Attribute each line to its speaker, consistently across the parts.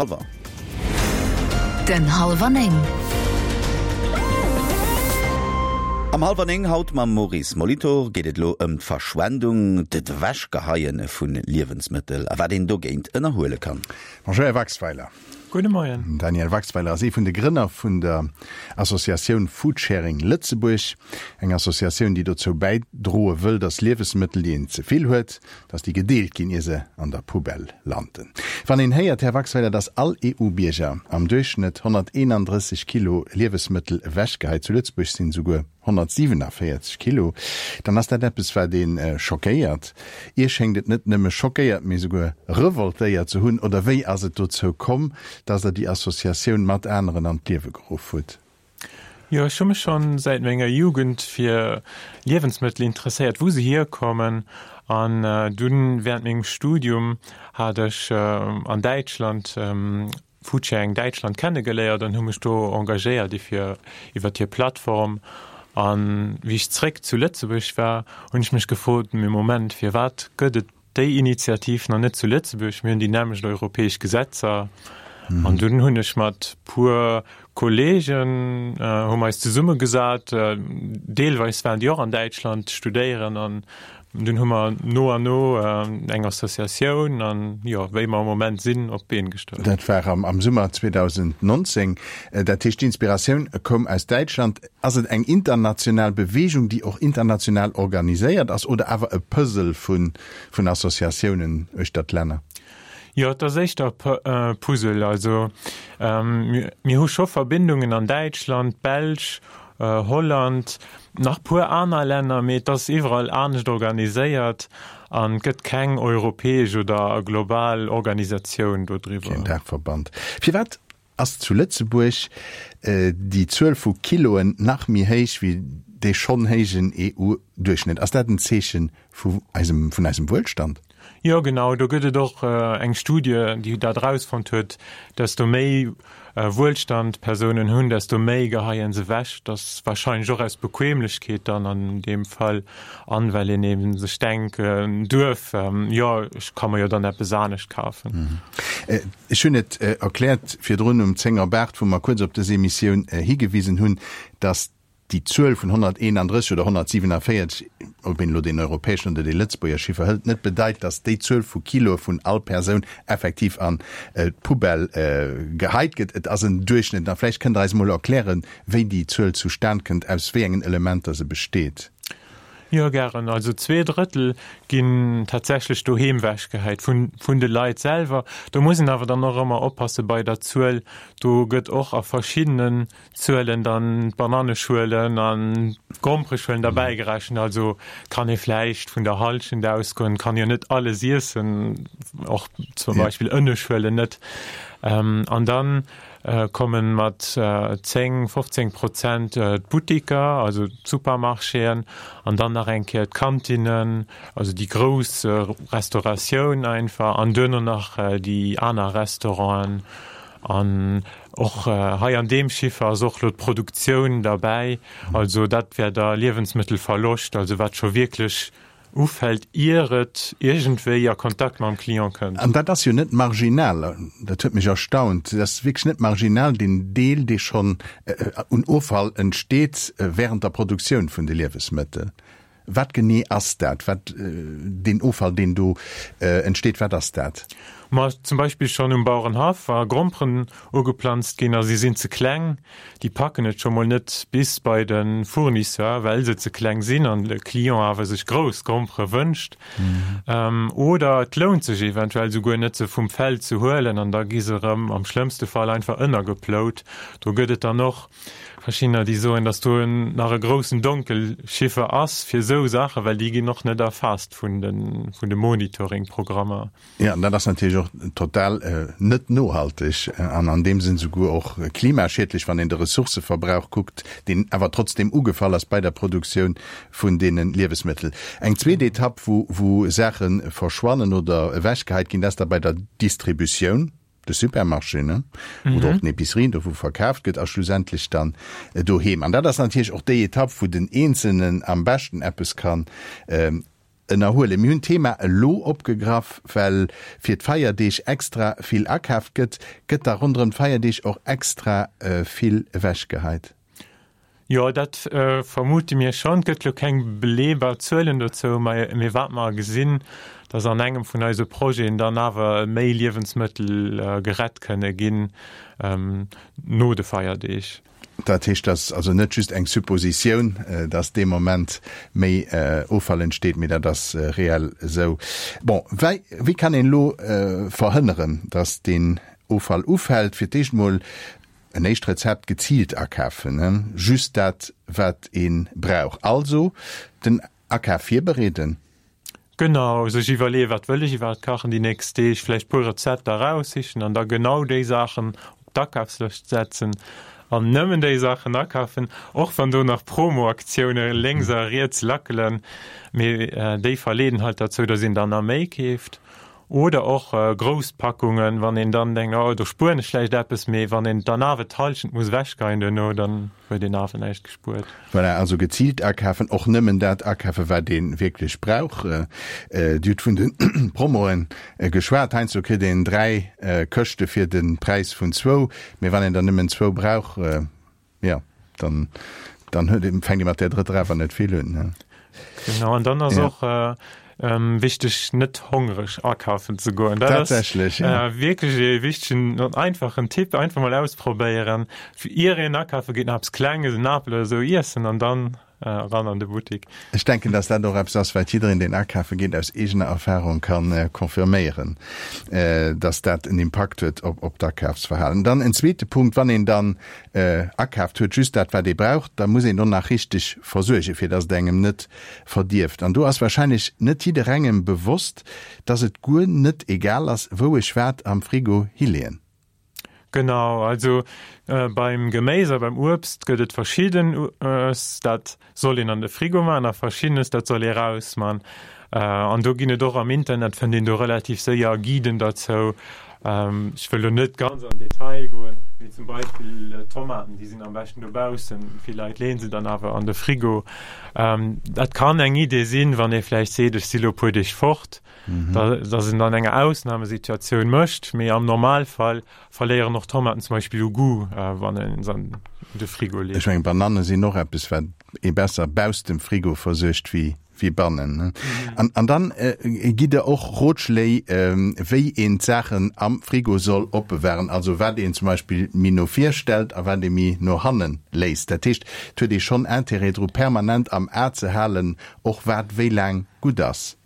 Speaker 1: Halwer.
Speaker 2: Den Halwer 9.
Speaker 1: Am Halwer 9 haut mam Maurice Molitor geet et elo ëm d'Verschwendung, d'Ewechgeheie vu Liewensmëttel a wat een dogéint ënnerhuele kann.
Speaker 3: Bonjour Här Waxweiler.
Speaker 4: Gudde Moien.
Speaker 3: Den Daniel Waxweiler ass ee vun de Grënner vun der Associatioun Foodsharing Lëtzebuerg. Eng Associatioun, déi dozou bäidroe wëll, datt Liewesmëttel, déi een ze vill huet, dass déi gedeelt ginn, ier se an der Poubelle landen. Wann een héiert, Här Waxweiler, dass all EU-Bierger am Duerchschnëtt 131 Kilo Liewesmëttel ewechgeheit, zu Lëtzebuerg sinn esouguer 147 Kilo, dann ass dat eppes, wat ee schockéiert. Iech schéngt et net nëmme schockéiert, mee esouguer revoltéiert ze hunn. Oder wéi ass et dozou komm, dass Der déi Associatioun mat aneren an d'Liewe geruff hutt?
Speaker 4: Jo, ech hu mech schonn säit menger Jugend fir Liewensmëttel interesséiert, wou se hierkommen. An dunn während mengem Studium hat ech an Däitschland Foodsharing Däitschland kennegeléiert an hu mech do engagéiert ifir iwwert hir Plattform. An wéi ech zréck zu Lëtzebuerg war, hunn ech mech gefrot, mee Moment, firwat gëtt et déi Initiativ nach net zu Lëtzebuerg, mir hunn déi nämmlecht europäesch Gesetzer. An dunn hunn ech mat puer Kollegen, hu mer eis zesummegesat, deelweis waren déi och an Däitschland studéieren, an dunn hu mer no an no eng Associatioun an, jo, wéi mer am Moment sinn, op d'Been gestallt.
Speaker 3: Dat war am Summer 2019. Dat heescht, d'Inspiratioun koum aus Däitschland. Ass et eng international Beweegung, déi och international organiséiert ass, oder awer e Puzzle vun Associatiounen uechter d'Länner?
Speaker 4: Jo, et ass éischter e Puzzle. Also mir hu scho Verbindungen an Däitschland, d'Belsch, Holland, nach puer aner Länner, mee et ass iwwerall anescht organiséiert an et gëtt keng europäesch oder global Organisatioun dodriwwer.
Speaker 3: Keen Daachverband. Firwat Ass zu Lëtzebuerg déi Zuel vu Kiloen nach méi héich wéi dee schonn héijen EU-Duerchschnëtt? Ass dat en Zeeche vu eisem, vun eisem Wuelstand?
Speaker 4: Jo, genau. Do gëtt et och eng Studie, déi dat erausfonnt huet, desto méi Wuelstand d'Persounen hunn, desto méi geheien se ewech. Dat ass warscheinlech och aus Bequemlechkeet dann an deem Fall an well een eben sech denken duerf, jo, ech ka mer jo dann eppes anescht kafen.
Speaker 3: Ech hunn et erkläert virdrun um 10 op 8, wou mer kuerz op dës Emissioun higewisen hunn, dass déi Zuel vun 131 oder 147, ob een elo deen europäeschen oder dee Lëtzebuerger Chiffer hëlt, net bedeit, dass déi Zuel vu Kiloe vun all Persoun effektiv an d'Poubelle geheit gëtt. Et ass en Duerchschnëtt. A vläicht kënnt Der eis emol erklären, wéi déi Zuel zustan kënnt, aus wéi engen Elementer se besteet.
Speaker 4: Jo, gären. Also zweedrëttel ginn tatsächlech doheem wechgehäit vun, vun de Leit selwer. Do muss een awer dann och ëmmer oppasse bei der Zuel. Do gëtt och a verschiddenen Zuelen dann d'Bananneschuelen an d'Grompereschuelen derbäi gerechent. Also kann ee vläicht vun der Hallschent ausgoen, kann jo net alles iessen, och zum Beispill Ënneschuelen net. An dann kommen mat 10, 15 Prozent d'Buttiker, also d'Supermarchéen, an dann nach eng Kéier d'Kantinnen, also déi grouss Restauratioun einfach, an duerno nach déi aner Restauranten. An och hei an deem Chiffer ass och elo d'Produktioun derbäi, also dat wär da Liewensmëttelverloscht, also wat scho wierklech ufält, ier et iergendwéi a Kontakt mam Client kënnt.
Speaker 3: An dat ass jo net marginal, dat huet mech erstaunt, dat ass wierklech net marginal, deen Deel, dee schonn un Offall entsteet während der Produktioun vun de Liewesmëttel. Wat genee ass dat, wat deen Offall, deen do entsteet, wat ass dat?
Speaker 4: Ma zum Beispill schonn um Bauerenhaff, wa Gromperen ugeplanzt ginn a si sinn ze kleng, Déi packen et scho mol net bis bei de Fournisseur, well se ze kleng sinn an de Client awer sech grouss Grompere wënscht. Oder et lount sech eventuell souguer net, se vum Feld ze huelen an da gi se erëm am schlëmmste Fall einfach ënnergeplout. Do gëtt et dann och verschiddener, déi soen, datt do nach e groussen Donkelchiffer ass fir esou Saachen, well déi ginn och net erfaasst vun de Monitoring-Programmer.
Speaker 3: Jo, an dat ass natierlech och total net nohalteg an an deem Sënn souguer och klimaschiedlech, wann een de Ressourcëverbrauch kuckt, deen awer trotzdeem ugefall ass bei der Produktioun vun deene Liewesmëttel. Eng zweet Etapp, wou wou Saache verschwannen oder ewechgeheit ginn, dat ass da bei der Distributioun, de Supermarchéen oder och den Epicerien, do wou verkaaft gëtt, a schlussendlech dann doheem. An dat ass natierlech och déi Etapp, wou den Eenzelnen am beschten eppes kann. Ënnerhuelen. Mir hunn d'Thema elo opgegraff, well fir d'Feierdeeg extra vill akaaft gëtt. Gëtt da ronderëm d'Feierdeeg och extra vill ewechgeheit?
Speaker 4: Jo, dat vermute mir schonn. Et gëtt elo keng beleebar Zuelen dozou, mee wat mer gesinn, datt an engem vun eise Projeten dann awer méi Liewensmëttel gerett kënne ginn no de Feierdeeg.
Speaker 3: Dat heescht, dat ass also net just eng Suppositioun, dass dee Moment méi Offall entsteet, mee dat ass reell esou. Bon, wei, wéi kann een elo verhënneren, dass deen Offall ufält? Fir d'éischt mol en éischt Rezept, geziilt akafen, just dat, wat ee brauch. Also den Akaf virbereeden.
Speaker 4: Genau, sech iwwerleeën, wat wëll ech iwwerhaapt kachen déi nächst Deeg, vläicht puer Rezepter eraussichen an da genau déi Saachen op d'Akafslëscht setzen an nëmmen déi Saachen akafen, och wann do nach Promoaktioune lénks a riets lackelen, mee déi verleeden halt derzou, dass een dann nach méi keeft. Oder och grouss Packungen, wann een dann denkt, oh do spueren ech vläicht eppes, mee wann een dann awer d'Hallschent muss ewechgeien duerno, dann huet een awer näischt gespuert.
Speaker 3: Voilà, also geziilt akafen, och nëmmen dat akafen, wat ee wierklech brauch. Dir hutt vun de Promoe geschwat. Heiansdo kritt een 3 Këschte fir de Präis vun zwou, mee wann een der nëmmen zwou brauch, Jo, dann, dann huet een, fänkt ee mat där drëtter awer net vill un, ne?
Speaker 4: Genau, an dann ass ja. och äh, ähm, wichteg, net hongreg akafen ze goen.
Speaker 3: Dat Tatsächlech,
Speaker 4: ass, ja. äh, wierklech e wichtegen an einfachen Tipp, einfach mal ausprobéieren. Fir ier een akafe geet, nach eppes Klenges, en Apel oder sou iessen an dann Eran an de Buttik.
Speaker 3: Ech denken, dass dat och eppes ass, wat jiddereen, deen akafe geet, aus eegener Erfahrung ka confirméieren, dass dat en Impakt huet op d'Akafsverhalen. Dann en zweete Punkt, Wann een dann akaaft huet, just dat, wat ee brauch, da muss een och nach richteg versuergen, fir dass et engem net verdierft. An do ass wahrscheinlech net jidderengem bewosst, dass et guer net egal ass, wou ech wat am Frigo hileeën.
Speaker 4: Genau, also beim Geméis a beim Uebst gëtt et verschiddenes, dat soll een an de Frigo man a verschiddenes, dat soll ee raus man. An do ginn et och am Internet, fënnt een do relativ séier Guiden derzou. Ech wëll lo net ganz an Detail goen, mee zum Beispill Tomaten, déi sinn am beschten dobaussen, vill Leit leeën se dann awer an de Frigo. Dat kann eng Idee sinn, wann ee vläicht seet, ech si lo e puer Deeg fort, dass en dann enger Ausnahmesituatioun mécht, mee am Normalfall verléieren och Tomaten zum Beispill u Goût, wann een se an de Frigo leet.
Speaker 3: Ech mengen, Bananne sinn och eppes, wat ee besser bausst dem Frigo versuergt wéi wéi bannen. An, an dann gitt Der och Rotschléi, wéi een d'Saachen am Frigo soll opbewahren, also wat een zum Beispill méi no vir stellt a wat ee méi no hanne léisst. Dat heescht, et huet ee schonn Intérêt dru permanent am A ze halen, och wat wéi laang gutt ass.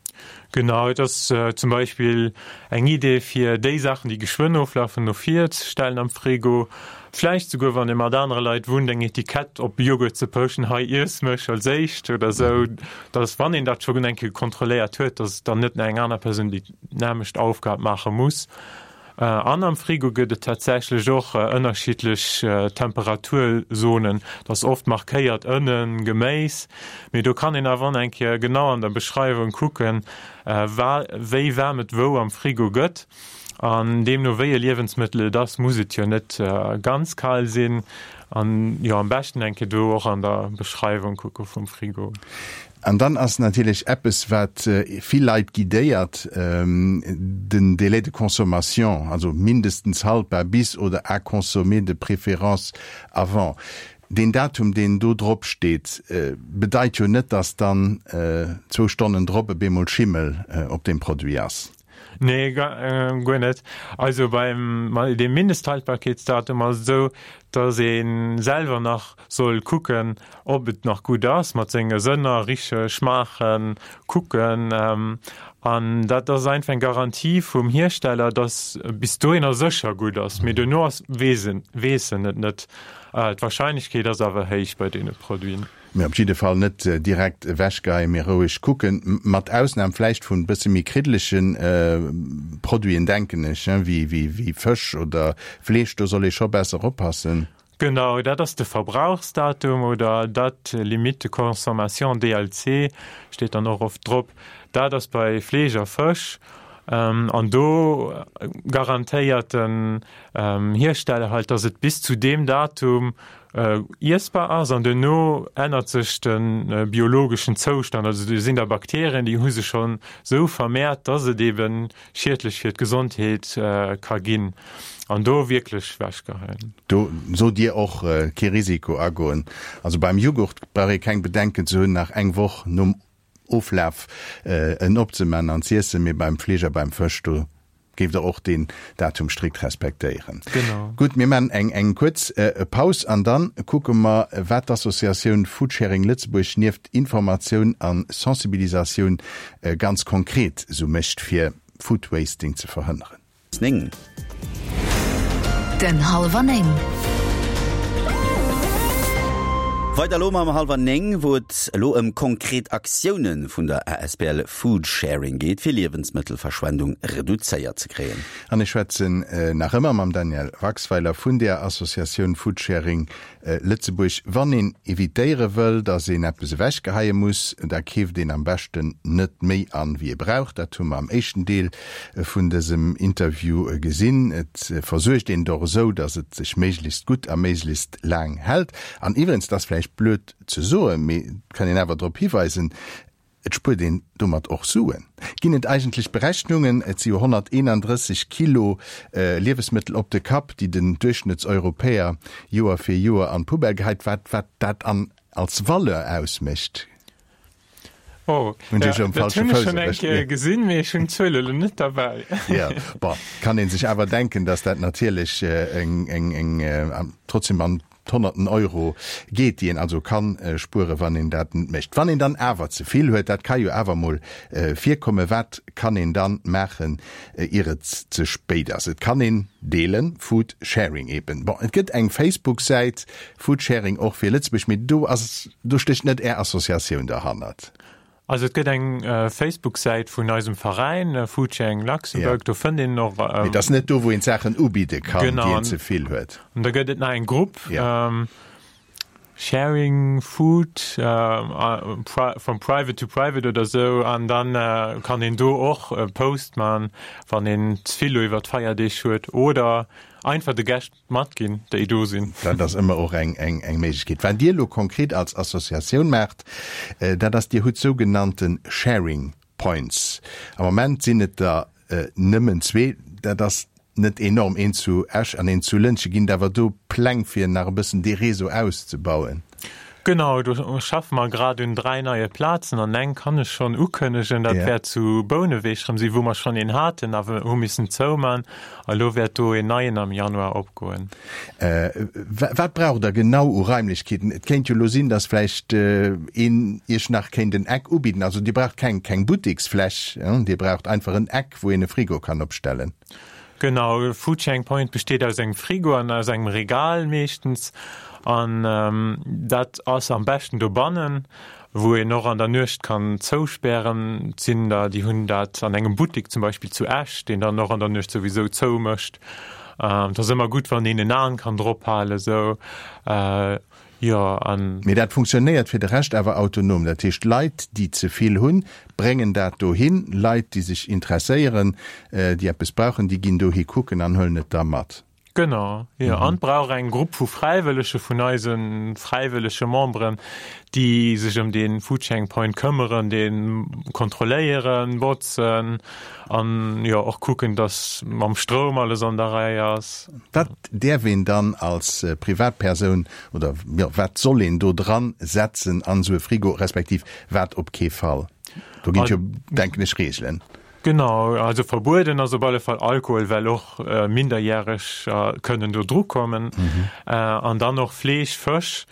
Speaker 4: Genau, et ass zum Beispill eng Idee fir déi Saachen, déi geschwënn oflafen, no vir ze stellen am Frigo. Vläicht souguer, wann ee mat anere Leit wunnt, eng Etikett op Joghurt ze pechen, hei iess mech als éischt oder sou, dass, wann een dat schonn eng Kéier kontrolléiert huet, dass dann net nach eng aner Persoun déi nämmlecht Aufgab maache muss. An am Frigo gëtt et tatsächlech och ënnerschiddlech Temperaturzonen. Dat ass oft markéiert ënnen, Geméis, mee do kann een awer och eng Kéier genau an der Beschreiwung kucken, wéi waarm et wou am Frigo gëtt. An deemno wéi e Liewensmëttel et ass, muss et jo net ganz kal sinn. An jo, am beschten eng Kéier do och an der Beschreiwung kucke vum Frigo.
Speaker 3: An dann ass natierlech eppes, wat vill Leit guidéiert, den Délai de consommation, also mindestens haltbar bis oder à consommer de préférence avant. Deen Datum, deen do drop steet, bedeit jo net, dass dann zwou Stonnen drop e bemol Schimmel op deem Produit ass.
Speaker 4: Nee, guer net. Also beim deem Mindesthaltbarkeetsdatum ass et esou, datt ee selwer nach soll kucken, ob et nach gutt ass, mat senge Sënner, riche, schmaachen, kucken. An dat ass einfach eng Garantie vum Hiersteller, datt bis dohinner sécher gutt ass. Mee duerno ass, weess en, weess en et net. D'Warscheinlechkeet ass awer héich bei deene Produiten.
Speaker 3: Mee op jidde Fall net direkt ewechgeheien, mee roueg kucken, mat Ausnam vläicht vun bësse méi kriddelege Produiten, denken ech, wéi Fësch oder Fleesch, do soll ee scho besser oppassen.
Speaker 4: Genau, dat ass de Verbrauchsdatum oder Date limite de consommation, DLC, steet dann och oft drop. Dat ass bei Fleesch a Fësch an do garantéiert den Hiersteller halt, dass et bis zu deem Datum. Iessbar ass an duerno ännert sech de biologeschen Zoustand. Also do sinn da Bakterien, déi hu sech schonn esou vermehrt, dass et eben schiedlech fir d'Gesondheet ka ginn an do wierklech wechgeheien.
Speaker 3: Do sot Dir och, kee Risiko agoen. Also beim Jughurt brauch ee keng Bedenken ze hunn, nach eng Woch nom Oflaf en opzeman an z'iessen, mee beim Fleesch a beim Fësch, do géift Der och deen Datum strikt respektéieren.
Speaker 4: Genau.
Speaker 3: Gutt, mir maachen eng eng kuerz Paus an dann kucke mer, wat d'Associatioun Foodsharing Lëtzebuerg nieft Informatioun a Sensibilisatioun ganz konkret esou mécht, fir Foodwasting ze verhënneren.
Speaker 1: 9.
Speaker 2: Den Hallwer 9.
Speaker 1: Weider elo mam Hallwer 9, wou et elo ëm konkret Aktioune vun der asbl Foodsharing geet, fir Liewensmëttelverschwendung reduzéiert ze kréien.
Speaker 3: An ech schwätzen nach ëmmer mam Daniel Waxweiler vun der Associatioun Foodsharing Lëtzebuerg. Wann een evitéiere wëll, datt een eppes ewechgeheie muss, da keeft een am beschten net méi an, wéi ee brauch. Dat hu mer am éischten Deel vun dësem Interview gesinn. Et versuergt een et och esou, datt et sech méiglechst gutt a méiglechst laang hält. An iwwerens, et ass vläicht blöd ze soen, mee et kann een awer drop hiweisen, Et spuert een domat och Suen. Ginn et eigentlech Berechnungen, et si jo 131 Kilo Liewesmëttel op de Kapp, déi den Duerchschnëttseuropäer Joer fir Joer an d'Poubelle geheit, wat wat dat an als Valeur ausmécht?
Speaker 4: Oh,
Speaker 3: Hunn ech
Speaker 4: ja,
Speaker 3: um
Speaker 4: dat
Speaker 3: falsche
Speaker 4: hunn ech
Speaker 3: Fouss
Speaker 4: schonn eng
Speaker 3: erwëscht?
Speaker 4: Kéier gesinn, mee ech hunn d'Zuel elo net derbäi.
Speaker 3: Jo, bon, kann ee sech awer denken, datt dat natierlech eng, eng, eng, trotzdem an d'Honnerten Euro geet, déi een also kann spueren, wann een dat net mécht. Wann een dann awer ze vill huet, dat ka jo awer mol virkommen, wat kann een dann maachen, ier et ze spéit ass? Et kann een deelen, Food Sharing eben. Bon, et gëtt eng Facebook-Säit, Food Sharing och fir Lëtzebuerg, mee do ass, do stécht net Är Associatioun derhannert.
Speaker 4: Also et gëtt eng Facebook-Säit vun eisem Veräin, Foodsharing Luxembourg, do fënnt een och.
Speaker 3: Mee et ass net do, wou een d'Saachen ubidde kann, déi een ze vill huet.
Speaker 4: An da gëtt et nach eng Grupp, Sharing Food from private to private oder esou, an da kann een do och e Post man, wann een ze vill elo iwwer d'Feierdeeg huet oder einfach de Gäscht Matginn, déi do sinn.
Speaker 3: Dat ass ëmmer och eng Méiglechkeet. Wat Dir elo konkret als Associatioun maacht, dat ass, Dir hutt sougenannte Sharing Points. Am Moment sinn et der nëmmen zwee. Dat ass net enorm, een zu Esch an een zu Lëntgen. Ginn et awer do Pläng, fir nach e bëssen dee Réseau auszebauen?
Speaker 4: Genau, do schaffe mer grad un 3 neie Plazen an eng kann ech schonn ukënnegen, dat wäert zu Bouneweg erëm sinn, wou mer schonn een haten, awer hu missen zouman. A lo wäert do een neien am Januar opgoen.
Speaker 3: Wat braucht Der genau u Raimlechkeeten? Et kéint jo elo sinn, datt vläicht een Iech nach kéint en Eck ubidden. Also Dir braucht keng keng Butteksfläch, Dir braucht einfach en Eck, wou een e Frigo kann opstellen.
Speaker 4: Genau, e Foodsharing Point besteet aus engem Frigo an aus engem Regal meeschtens. An dat ass am beschten dobannen, wou een och an der Nuecht kann zouspären. Et sinn der, déi hunn dat an engem Buttek zum Beispill zu Esch, deen dann och an der Nuecht souwisou zou mécht. Et ass ëmmer gutt, wann een en Aen kann drop halen esou. Jo, an.
Speaker 3: Mee dat funktionéiert fir de Rescht awer autonom. Dat heescht, Leit, déi ze vill hunn, bréngen dat dohin. Leit, déi sech interesséieren, déi eppes brauchen, déi ginn dohi kucken an huelen et da mat.
Speaker 4: Genau, jo. An et brauch eng Grupp vu Fräiwëllege vun eise fräiwëllege Memberen, déi sech ëm dee Foodsharing Point këmmeren, dee kontrolléieren, botzen an, jo, och kucken, dass mam Stroum alles an der Rei ass.
Speaker 3: Wat däerf een dann als Privatpersoun oder, jo, wat soll een do dran setzen an esou e Frigo, respektiv wat op kee Fall? Do ginn et jo, denken ech, Reegelen.
Speaker 4: Genau, also verbueden ass op alle Fall Alkohol, well och Minderjäreg kënnen do dru kommen. An dann och Fleesch, Fësch,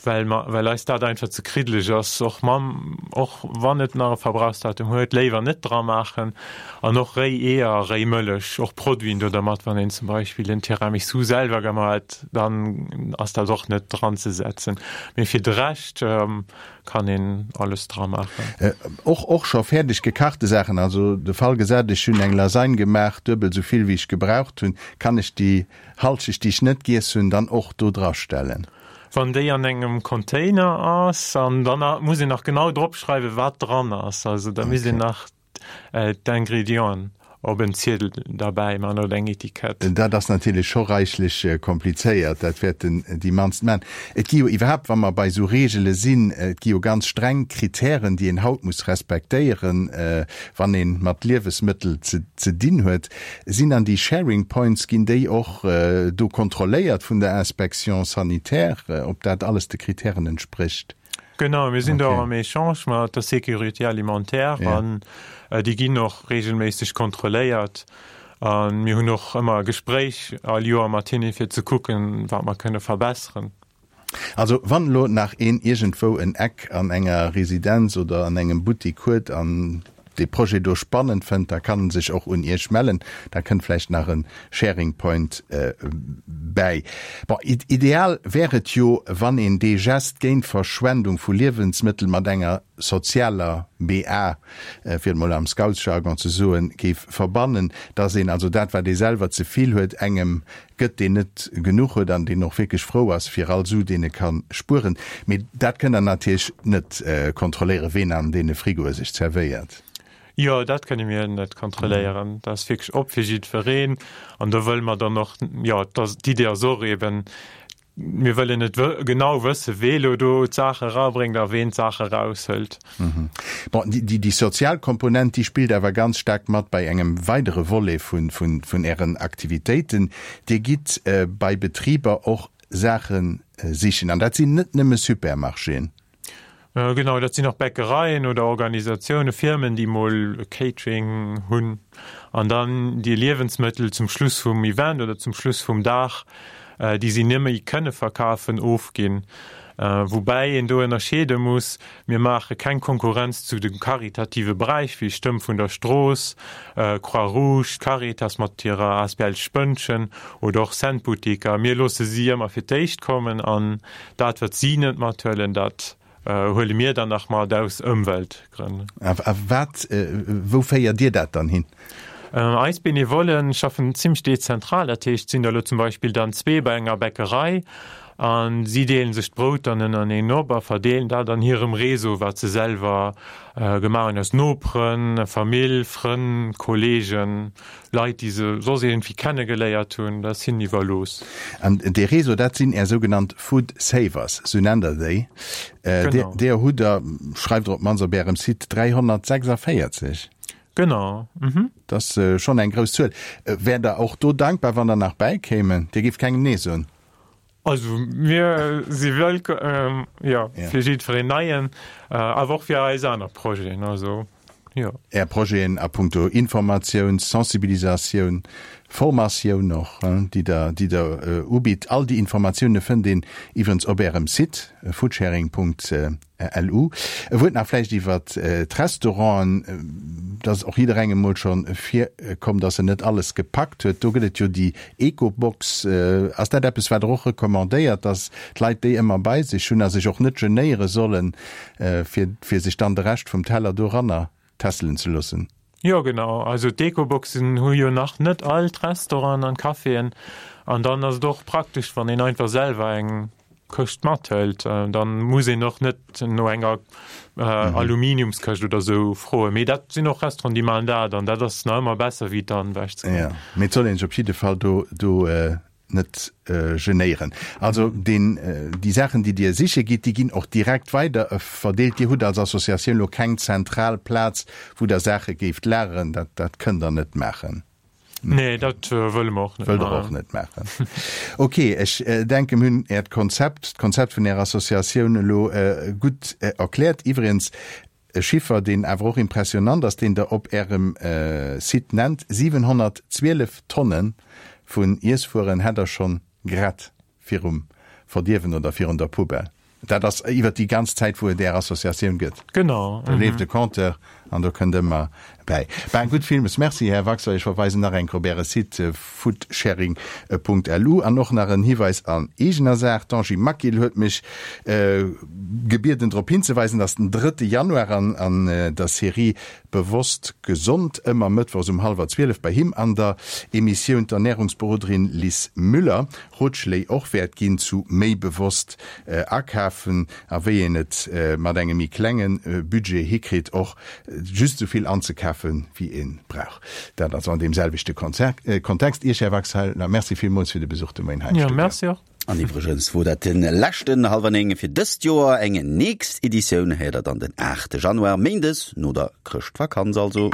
Speaker 4: well mer, well eis dat einfach ze kriddeleg ass, och mam, och wann et nach e Verbrauchsdatum huet, léiwer net dra maachen. An och réi Eeër, réi Mëllech, och Produiten do dermat, wann een zum Beispill en Tiramisu selwer gemaach huet, dann ass dat och net dran ze setzen. Mee fir de Rescht, Kann een alles dra maachen.
Speaker 3: Och och scho fäerdeg gekachte Saachen, also de Fall gesat, ech hunn eng Lasagne gemaach, duebel esou vill wéi ech gebraucht hunn, kann ech déi Halschecht déi ech net giess hunn dann och do dra stellen?
Speaker 4: Wann déi an engem Container ass, an dann muss een nach genau drop schreiwen wat dran ass, also da misst een nach d'Ingrédienten. Op en Ziedel derbäi man oder eng Etikett.
Speaker 3: Dat ass natierlech scho reichlech komplizéiert, dat wäerten déi mannst man. Et gi jo iwwerhaapt, wa mer bei esou Reegele sinn, et gi jo ganz streng Kritären, déi een haut muss respektéieren, wann ee mat Liewesmëttel ze dinn huet. Sinn dann déi Sharing Points, ginn déi och do kontrolléiert vun der Inspection sanitaire, ob dat alles de Kritären entsprécht?
Speaker 4: Genau, mir sinn do am Echange mat der Sécurité alimentaire an déi ginn och reegelméisseg kontrolléiert. A mir hunn och ëmmer e Gespréich all Joer mat hinne fir ze kucken, wat mer kënne verbesseren.
Speaker 3: Also wann elo nach een iergendwou en Eck an enger Residenz oder an engem Buttik huet an dee Projet do spannend fënnt, da kann en sech och un Iech mellen. Da kënnt vläicht nach e Sharing Point bäi. Bon, ideal wär et jo, wann een dee Gest géint d'Verschwendung vu Liewensmëttel mat enger sozialer BA, fir et mol am Scoutsjargon ze soen, géif verbannen, dass een also dat, wat ee selwer ze vill huet, engem gëtt, deen net genuch huet an deen och wierklech frou ass fir all Su, deen e ka spueren. Mee dat kënnt Der natierlech net kontrolléieren, ween an deene Frigoe sech zerwéiert.
Speaker 4: Jo, dat kënne mir net kontrolléieren. Dat ass wierklech op fir jiddwereen. An do wëlle mer dann och, jo, d'Idee ass och eeben, Mir wëllen net genau wësse wee lo do d'Saache erabréngt a ween d'Saache eraushëlt.
Speaker 3: Bon, déi sozial Komponent, déi spillt awer ganz staark mat bei engem weidere Volet vun Ären Aktivitéiten. Dir gitt bei Betriber och Saache sichen, an dat sinn net nëmme Supermarchéen.
Speaker 4: Genau, dat sinn och Bäckereien oder Organisatiounen, Firmen, déi mol Catering hunn an dann déi Liewensmëttel zum Schluss vum Event oder zum Schluss vum Dag, déi si net méi kënne verkafen, ofginn. Woubäi een do ënnerscheede muss, Mir maache keng Konkurrenz zu de karitative Beräich wéi Stëmm vun der Strooss, Croix-Rouge, d'Caritas mat hirer asbl Spënnchen oder och Cent-Boutiker. Mir loosse si ëmmer fir d'éischt kommen an Dat, wat si net mathuelen, dat huele mir dann nach mat aus Ëmweltgrënn.
Speaker 3: A wat, wou féiert Dir dat dann hin?
Speaker 4: Eis Benevollen schaffen zimmlech dezentral, dat heescht, et sinn der elo zum Beispill dann zwee bei enger Bäckerei a si deelen sech d'Brout dann ënnereneen op a verdeelen dat an hirem Réseau, wat se selwer gemaach hunn, aus Noperen, Famill, Frënn, Kollegen. Leit, déi se soss iergendwéi kennegeléiert hunn, dat ass hinnen iwwerlooss.
Speaker 3: An dee Réseau, dat sinn Är sougenannt Food Savers, sou nennt Der déi. Genau. Deeër hutt Der, schreift Der op d'mannst op Ärem Site, 346.
Speaker 4: Genau.
Speaker 3: Mhm. Dat ass schonn eng grouss Zuel. Wäert Der och do dankbar, wann der nach bäikéimen? Dir géift kengem Nee soen?
Speaker 4: Also mir si wëllkomm, jo, fir jiddwereen Neien, awer och fir eis aner Projeten, also jo.
Speaker 3: Är Projeten a punkto Informatioun, Sensibilisatioun, Formatioun och, déi Der, déi Der ubitt, all déi Informatioune fënnt een iwwerens op Ärem Site foodsharing. LU. E Wuert nach vläicht iwwer d'Restauranten. Et ass och jidderengem mol scho virkomm, dass en net alles gepackt huet. Do gëtt et jo déi Ecobox. Ass dat eppes, wat Der och recommandéiert, dass d'Leit déi ëmmer bei sech hunn a sech och net genéiere sollen, fir fir sech dann de Rescht vum Teller doranner tässelen ze loossen?
Speaker 4: Jo genau, also d'Ecoboxen hu jo nach net all d'Restauranten an d'Caféen an dann ass et och praktesch wann een einfach selwer eng Këscht mathëlt, dann muss een och net no enger Aluminiumskëscht oder sou froen. Mee dat sinn och Restauranten déi maachen dat an dat ass nach ëmmer besser wéi dann ewech ze
Speaker 3: goen. Jo, mee et soll een sech op jidde Fall do do net genéieren. Also deen, déi Saachen, déi Dir siche gitt, déi ginn och direkt weider verdeelt. Dir hutt als Associatioun elo keng zentral Plaz, wou Der Saache géift lageren. Dat, dat kënnt Der net maachen.
Speaker 4: Nee, dat wëlle mer och net
Speaker 3: maachen. Wëllt Der och net maachen. Ok, ech denken, mir hunn Äert Konzept, d'Konzept vun Ärer Associatioun elo gutt erkläert. Iwwregens, E Chiffer, deen awer och impressionant ass, deen Der op Ärem Site nennt, 712 Tonne vun Iesswueren hätt Der schonn gerett virum Verdierwen oder virun der Poubelle. Dat ass iwwert déi ganz Zäit, wou et Är Associatioun gëtt.
Speaker 4: Genau.
Speaker 3: Do leeft e Compteur an do kënnt ëmmer bäi. Ben, gutt, villmools Merci, Här Waxer. Ech verweisen nach eng Kéier op Äre Site foodsharing.lu. An och nach en Hiweis an eegener Saach, D'Angie Maquil huet mech gebieden drop hinzeweisen, dass den drëtte Januar an der Serie Bewosst Gesond ëmmer mëttwochs um hallwer 12 bei him an der Emissioun d'Ernärungsberoderin Lis Müller Rotschléi och wäert ginn zu méi bewosst akafen a wéi een et mat engem méi klenge Budget hikritt och. just esou vill anzekafen, wéi ee brauch. Dat also an deem selwechte Kontext. Iech, Här Waxhaler, Merci villmools fir de Besuch de Moien hei am
Speaker 4: Studio. Jo, merci och.
Speaker 1: An iwwregens wor dat de leschten Hallwer 9 fir dëst Joer. Eng nächst Editioun héiert der dann den 8 Januar, méindes no der Chrëschtvakanz also.